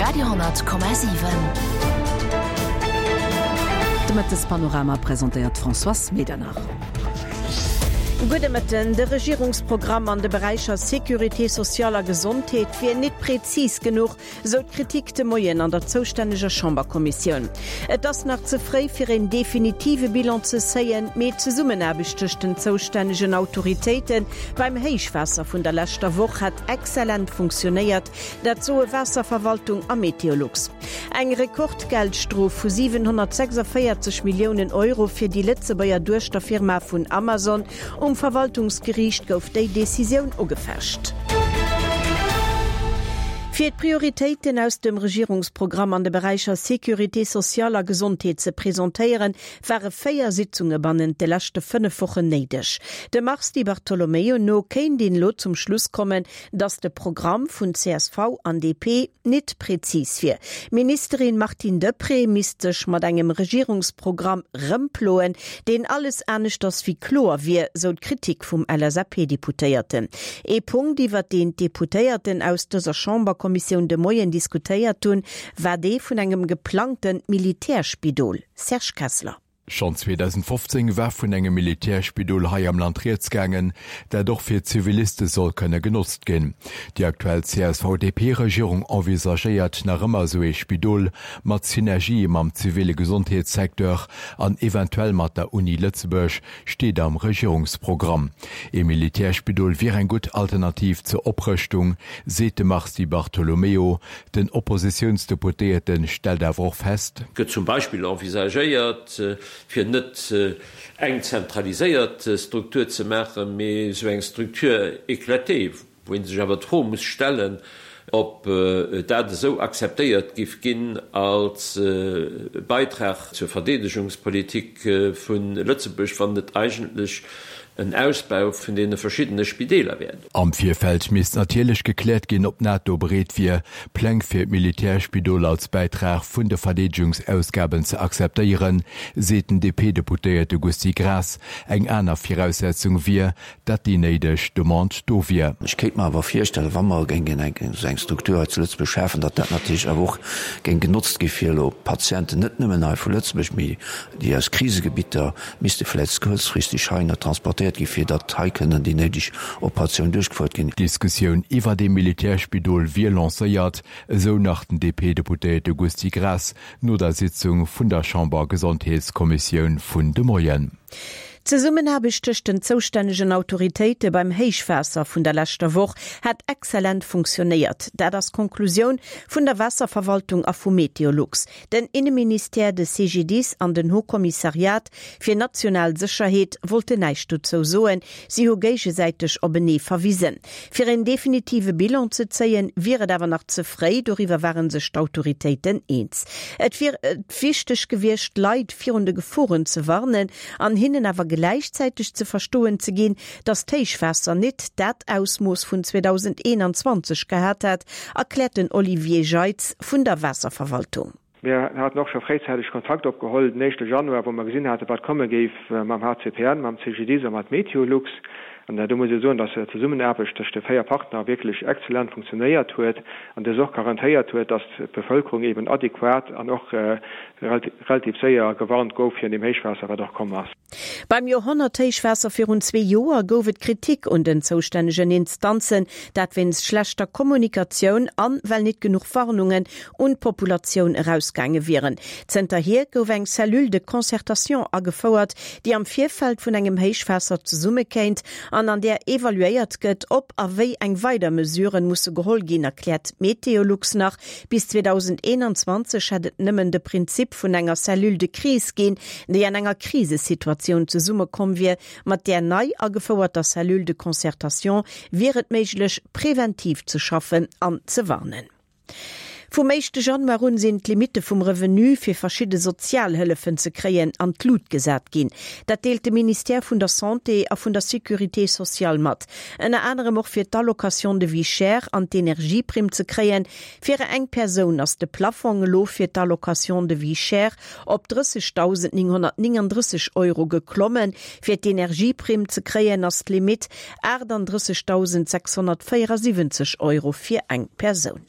Radio,7. De Mëttespanorama presentéiert d'Françoise Medernach. Gudde Mëtten. De Regierungsprogramm an de Beräicher Sécurité sociale a Gesondheet wier nit prezis genuch, Sou d'Kritik de Moien an der zoustänneger Chamberkommissioun. Et ass nach ze fréi fir een definitive Bilan ze zéien, mee d'Zesummenaarbecht tëscht den zoustännegen Autoritéite beim Héichwaasser vun der leschter Woch hätt exzellent funktionéiert, dat soe Waasserverwaltung a Meteolux. Eng Rekordgeldstrof vu 746 Milliounen Euro fir déi Lëtzebuerger Duechterfirma vun Amazon Um Verwaltungsgeriicht gouf déi Decisioun ugefecht. Fir d'Prioritéiten aus dem Regierungsprogramm an de Beräicher Sécurité sociale a Gesondheet ze presentéieren, ware 4 Sitzunge bannent de leschte 5 Wochen néideg. Dem Mars Di Bartolomeo no kéint een elo zum Schluss kommen, datt de Programm vun csv an DP nit prezis wier. D'Ministerin Martine Deprez misst sech mat engem Regierungsprogramm rëmploen, deen alles aneschters wéi kloer wier, sou d'Kritik vum LSAP-Deputéierten. Ee Punkt, iwwert deen d'Deputéierten aus dëser Chamberkommissioun de Moien diskutéiert hunn, war dee vun engem geplangte Militärspidol. Serge Kessler. Schonn 2015 war vun engem Militärspidol hei am Land rieds gaangen, dat och fir Ziviliste soll kënne genotzt ginn. Déi aktuell CSV-DP-Regierung envisagéiert nach ëmmer esou ee Spidol, mat Synergië mam ziville Gesondheetssecteur an eventuell mat der Uni Lëtzebuerg, steet am Regierungsprogramm. Ee Militärspidol wier eng gutt Alternativ zur Oprëschtung, seet de Mars Di Bartolomeo. Den Oppositiounsdeputéierte stellt awer och fest. Gëtt zum Beispill envisagéiert, fir net eng zentraliséiert Struktur ze maachen, mee esou eng Structure éclatée, wou ee sech awer d'Fro muss stellen, ob dat esou akzeptéiert giff ginn als Beitrag zur Verdeedegungspolitik vu Lëtzebuerg, wann et eigentlech en Ausbau vun deene verschiddene Spideeler wär. Am Virfeld misst natierlech gekläert ginn, ob d'NATO bereet wier, Pläng fir d'Militärspidol als Bäitrag vun de Verdeedegungsausgaben ze akzeptéieren, seet den DP-Deputéierte Gusty Graas. Eng aner Viraussetzung wier, datt déi néideg Demande do wier. Ech kéint mer awer virstellen, wa mer géingen esou eng Struktur hei zu Lëtzebuerg schafen, datt dat natierlech awer och géing genotzt gi fir elo Patienten, net nëmmen hei vu Lëtzebuerg, mee déi aus Krisegebitter misste vläicht kuerzfristeg heihinner transportéiert ginn, fir datt hei kënnen déi néideg Operatiounen duerchgefouert ginn. D'Diskussioun iwwert ee Militärspidol wier lancéiert, esou nach den DP-Deputéierte Gusty Graas no der Sitzung vun der Chamber-Gesondheetskommissioun vun de Moien. D'Zesummenaarbecht tëscht den zoustännegen Autoritéite beim Héichwaasser vun der leschter Woch hätt exzellent funktionéiert. Dat ass d'Konklusioun vun der Waasserverwaltung a vu Meteolux. Den Inneministère, de CGDIS an den Haut Commissariat fir national Sécherheet wollten näischt dozou soen. Si hu géigesäiteg openee verwisen. Fir een definitive Bilan ze zéien, wier et awer nach ze fréi, doriwwer ware sech d'Autoritéiten eens. Et wier wichteg gewiescht, d'Leit virun de Geforen ze warnen an hinnen awer gläichzäiteg ze verstoen ze ginn, datt d'Héichwaasser nit dat Ausmooss vun 2021 gehat hätt, erkläert den Olivier Jeitz vun der Waasserverwaltung. Mir haten och scho fréizäiteg Kontakt opgeholl den éischte Januar, wou mer gesinn haten, wat komme géif mam HCPN, mam CGDIS a mat Meteolux. An do muss ee soen, dass d'Zesummenaarbecht tëscht de 4 Partner wierklech exzellent funktionéiert huet an dës och garantéiert huet, dass d'Bevëlkerung eben adequat an och relativ séier gewarnt gouf virun deem Héichwaasser, wat och komm ass. Beim Joerhonnerthéichwaasser virun zwee Joer gouf et Kritik un den zoustännegen Instanzen, dat wéinst schlechter Kommunikatioun an well nit genuch Warnungen un d'Populatioun erausgaange wieren. Zënterhier gouf eng Cellule de concertation agefouert, déi am Virfeld vun engem Héichwaasser zesummekéint an an där evaluéiert gëtt, ob a wéi eng weider Mesuren musse geholl ginn, erkläert Meteolux nach. Bis 2021 hätt et nëmmen de Prinzip vun enger Cellule de crise ginn, déi an enger Krisesituatioun zesummekomm wier. Mat där nei agefouerter Cellule de concertation wier et méiglech, preventiv ze schaffen an ze warnen. Vum éischte Januar un sinn d'Limitte vum Revenu fir verschidde Sozialhëllefen ze kréien an d'Lut gesat ginn. Dat deelt de Ministère vun der Santé a vun der Sécurité sociale mat. Ënner anerem och fir d'Allocation de vie chère an d'Energieprimm ze kréien. Fir eng Persoun ass de Plaffong elo fir d'Allocation de vie chère op 30.939 Euro geklommen. Fir d'Energieprimm ze kréien ass d'Limitt 38.674 Euro fir eng Persoun.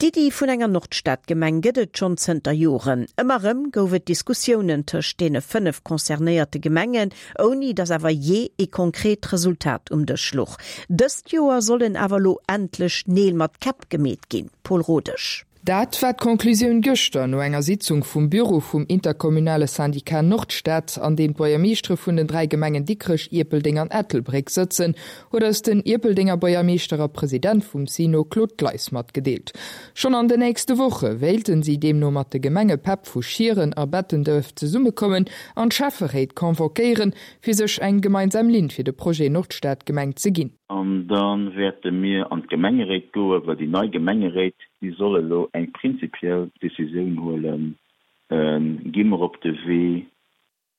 D'Iddi vun enger Nordstadgemeng gëtt et schonn zënter Joren. Ëmmer erëm gouf et Diskussiounen tëscht deene 5 concernéierte Gemengen, ouni datt awer jee ee konkret Resultat um Dësch luch. Dëst Joer sollen awer elo endlech Neel mat Käpp gemeet ginn. Paul Rodesch. Dat war d'Conclusioun gëschter no enger Sitzung vum Büro vum interkommunale Syndicat Nordstad, an deem d'Buergermeeschtere vun den 3 Gemengen Dikrech, Ierpeldeng an Ettelbréck sëtzen, huet eis den Ierpeldenger Buergermeeschter a President vum SINO Claude Gleis matgedeelt. Schonn an den nächste Woche wéilten si deemno mat de Gemengepäpp vu Schieren a Bettenduerf zesummekommen an d'Schäfferéit convoquéieren, fir sech eng gemeinsam Linn fir de Projet Nordstadgemeng ze ginn. An da wäerte mir an d'Gemengeréit goen, well déi nei Gemengeréit, déi soll elo eng prinzipiell Décisioun huelen, Gi mer op de Wee,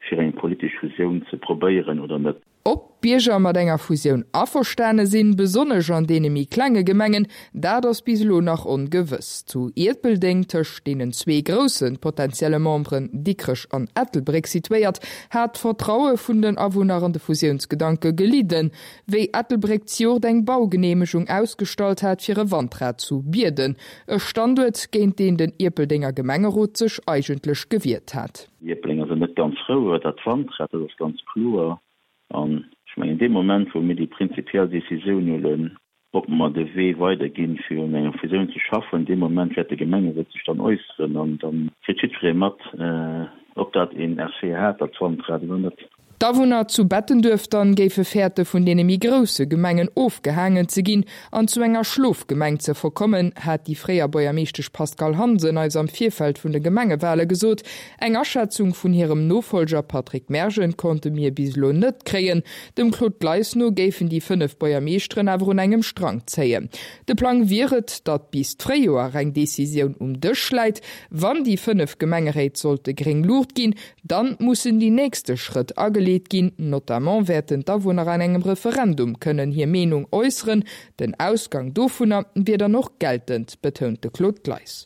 fir eng politesch Fusioun ze probéieren oder net? Ob d'Bierger mat enger Fusioun averstane sinn, besonnesch an deene méi klenge Gemengen, dat ass bis elo nach ongewëss. Zu Ierpeldeng, tëscht deenen zwee grousse potentielle Memberen Dikrech an Ettelbréck situéiert, hat d'Vertraue vun den Awunner an de Fusiounsgedanke gelidden. Wéi Ettelbréck d'Jort eng Baugeneemegung ausgestallt hat fir e Wandrad zu Bierden, e Standuert, géint deen den Ierpeldenger Gemengerot sech eigentlech gewiert hat. Déi Ierpelenger sinn net ganz frou iwwer dat Wandrad, dat ass ganz kloer. An ech mengen, dee Moment, wou mir déi prinzipiell Decisioun huelen, ob mer de Wee weiderginn, fir un enger Fusioun ze schaffen, dee Moment wäert de Gemengerot sech dann äusseren an da kritt jiddweree mat, ob dat een Effet hat, dat Wandrad, oder net. D'Awunner zu Bettenduerf dann géife fäerte vun deene méi grousse Gemengen ofgehaangen ze ginn an zu enger Schlofgemeng ze verkommen, hat déi fréier Buergermeeschtesch Pascale Hansen eis am Virfeld vun de Gemengewale gesot. Eng Aschätzung vun hirem Nofolger Patrick Mergen konnte mir bis elo net kréien. Dem Claude Gleis no géifen déi 5 Buergermeeschteren awer un engem Strang zéien. De Plang wier et, datt bis d'Fréijoer eng Decisioun um Dësch läit. Wann déi 5 Gemengeréit sollte gréng Luucht ginn, Dann mussen déi nächste Schrëtt ageleet ginn, notamment wäerten d'Awunner an engem Referendum kënnen hir Meenung äusseren. Den Ausgang dovunner wier dann och geltend, betount de Claude Gleis.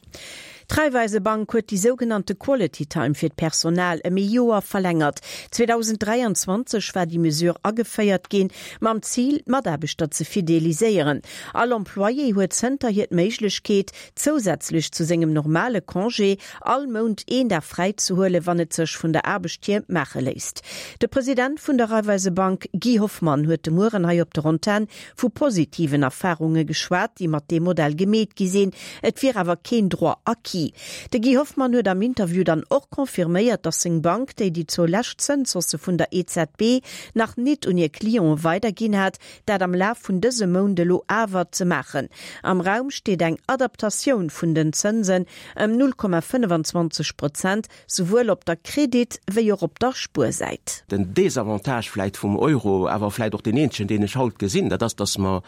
D'Raiffeisebank huet déi sougenannte Quality Time fir d'Personal ëm ee Joer verlängert. 2023 war déi Mesure ageféiert ginn, mam Zil, d'Mataarbechter ze fideliséieren. All Employé huet zënterhier d'Méiglechkeet, zousätzlech zu sengem normale Congé, all Mount een Dag fräi ze huelen, wann et sech vun der Aarbecht hier maache léisst. De President vun der Raiffeisebank Guy Hoffmann huet de Mueren hei op der Antenn vu positiven Erfarunge geschwat, déi mat deem Modell gemeet gi sinn. Et wier awer keen Droit acquis. De Guy Hoffmann huet am Interview dann och confirméiert, datt seng Bank, déi déi zwou lescht Zënshaussë vun der EZB nach nit un hir Clienten weiderginn hat, dat am Laf vun dësem Mount elo awer ze maachen. Am Raum steet eng Adaptatioun vun den Zënsen ëm 0,25 Prozent, souwuel op der Kredit wéi och op der Spuersäit. Den Désavantage vläit vum Euro, awer vläit och deen eenzegen, deen ech haut gesinn, dat ass, datt mer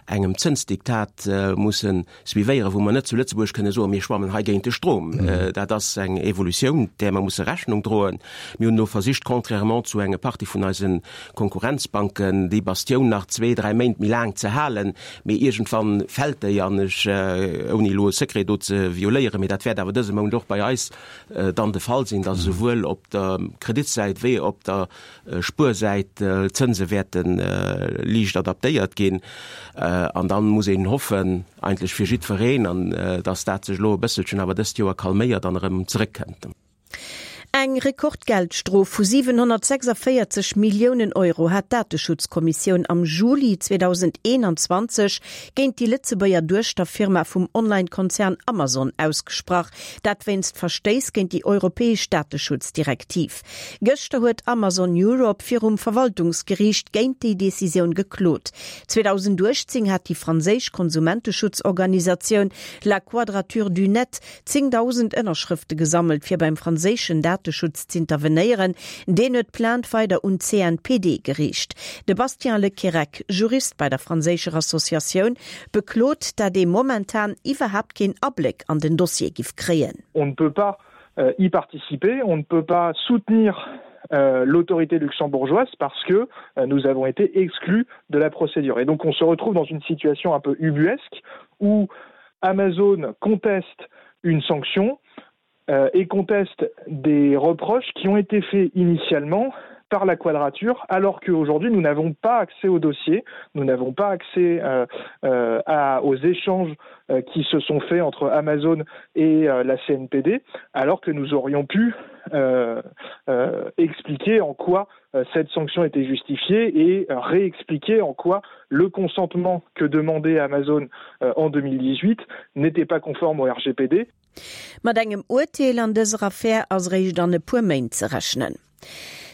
engem Zënsdiktat musse suivéieren, wou mer net zu Lëtzebuerg kënne soen, mir schwammen hei géint de Strom. Dat ass eng Evolutioun, där mer musse Rechnung droen. Mir hunn elo versicht, contrairement zu enge Partie vun eise Konkurrenzbanken, déi Bastioun nach zwee, dräi Méint méi laang ze halen, mee iergendwann fält déi an ech, ouni elo e Secret do ze violéieren, mee dat wäert awer dëse Mount och bei eis dann de Fall sinn, datt esouwuel op der Kreditsäit wéi op der Spuersäit d'Zënse wäerte liicht adaptéiert ginn. An da muss een hoffen, eigentlech fir jiddwereen, an datt dat sech elo e bësselchen awer dëst Joer calméiert an erëm zeréckkënnt. Eng Rekordgeldstrof vu 746 Milliounen Euro hat d'Dateschutzkommissioun am Juli 2021 géint déi Lëtzebuerger Duechterfirma vum Online-Konzern Amazon ausgesprach. Dat wéinst Verstéiss géint déi europäesch Dateschutzdirektiv. Gëschter huet Amazon Europe virum Verwaltungsgeriicht géint déi Decisioun geklot. 2018 hat déi franséisch Konsumenteschutzorganisatioun La Quadrature du Net 10.000 Ënnerschrëfte gesammelt, fir beim franséischen Dateschutz z'intervenéieren. Deen huet d'Plainte weider un d'CNPD geriicht. De Bastien Le Querrec, Jurist bei der franséischer Associatioun, beklot, dat ee momentan iwwerhaapt keen Abléck an den Dossier giff kréien. On ne peut pas y participer, on ne peut pas soutenir l'autorité luxembourgeoise parce que nous avons été exclus de la procédure. Et donc on se retrouve dans une situation un peu ubuesque où Amazon conteste une sanction euh, et conteste des reproches qui ont été faits initialement. par la quadrature alors qu'aujourd'hui nous n'avons pas accès au dossier, nous n'avons pas accès euh, euh, à, aux échanges euh, qui se sont faits entre Amazon et euh, la CNPD alors que nous aurions pu euh, euh, expliquer en quoi euh, cette sanction était justifiée et euh, réexpliquer en quoi le consentement que demandait Amazon euh, en 2018 n'était pas conforme au RGPD. Mat engem Urteel an dëser Affär ass eréischt an e puer Méint ze rechnen.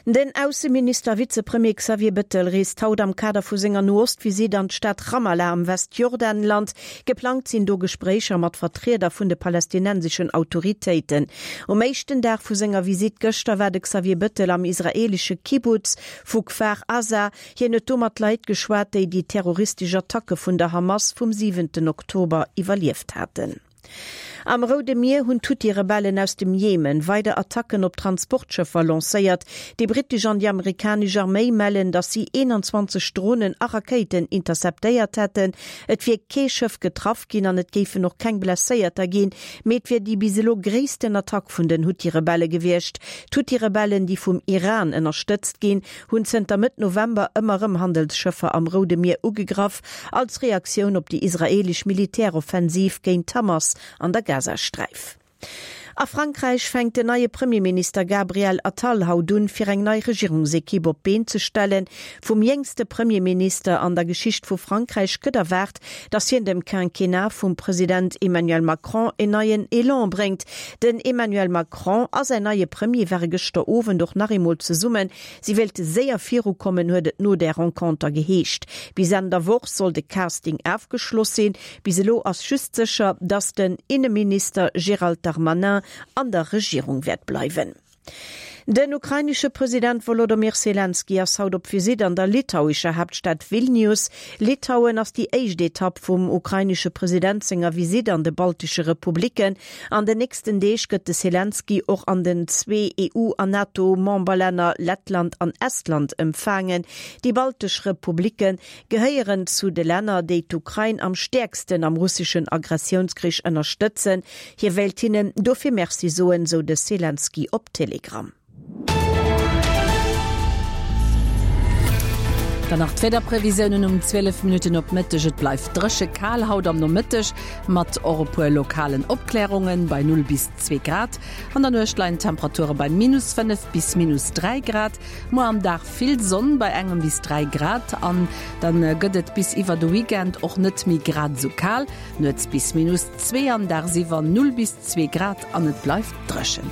Den Ausseminister a Vizepremier Xavier Bettel reest haut am Kader vu senger No-Ost-Visitt an d'Stad Ramallah am Westjordanland. Geplangt sinn do Gespréicher mat Vertrieder vun de palästinenseschen Autoritéiten. Um éischten Dag vu senger Visitt gëschter war de Xavier Bettel am israeelesche Kibbutz vu Kfar Aza. Hien huet do mat Leit geschwat, déi déi terroristesch Attacke vun der Hamas vum siwenten Oktober iwwerlieft haten. Am Roude Mier hunn d'Huthi-Rebellen aus dem Jemen weider Attacken op Transportschëffer lancéiert. Déi brittesch an déi amerikanesch Arméi mellen, datt si 21 Dronen a Rakéiten interceptéiert hätten. Et wier kee Schëff getraff ginn an et géifen och keng Blesséierter ginn, mee et wier déi bis elo gréissten Attack vun den Huthi-Rebelle gewiescht. D'Huthi-Rebellen, déi vum Iran ënnerstëtzt ginn, hunn zënter Mëtt November ëmmer erëm Handelsschëffer am Roude Mier ugegraff, als Reaktioun op déi israeelesch Militäroffensiv géint d'Hamas an der Gazasträif. A Frankräich fänkt den neie Premierminister Gabriel Attal haut un, fir eng nei Regierungsekipp op d'Been ze stellen. Vum jéngste Premierminister an der Geschicht vu Frankräich gëtt erwaart, datt hien dem Quinquennat vum President Emmanuel Macron en neien Elan bréngt. Den Emmanuel Macron a säin neie Premier ware gëschter Owend och nach eemol zesummen Si wéilte séier virukommen, huet et no där Renconter geheescht. Bis Enn der Woch soll de Casting afgeschloss sinn. Bis elo ass just sécher, datt den Inneminister Gérald Darmanin an der Regierung wäert bleiwen. Den ukrainesche President Wolodomyr Selenskyj ass haut op Visitt an der litauischer Haaptstad Vilnius. Litauen ass déi éischt Etapp vum ukrainesche President senger Visitt an de baltesche Republicken. An den nächsten Deeg gëtt de Selenskyj och an den zwee EU an NATO-Memberlänner Lettland an Estland empfaangen. Déi baltesch Republicke gehéieren zu de Länner, déi d'Ukrain am stäerksten am russeschen Agressiounskrich ënnerstëtzen. Hie wéilt hinnen dofir Merci soen, sou de Selenskyj op Telegram. Dann nach d'Wiederprevisiounen um 12 Minutten op Mëtteg. Et bleift dréche kal haut am Nomëtteg, mat och e puer lokalen Opklärungen, bei 0 bis 2 Grad. An der Nuecht leien d'Temperature bei minus 5 bis minus 3 Grad. Muer am Dag vill Sonn bei engem bis 3 Grad an dann gëtt et bis iwwer de Weekend och net méi grad esou kal, nuets bis minus 2 an dagsiwwer 0 bis 2 Grad an et bleift dréchen.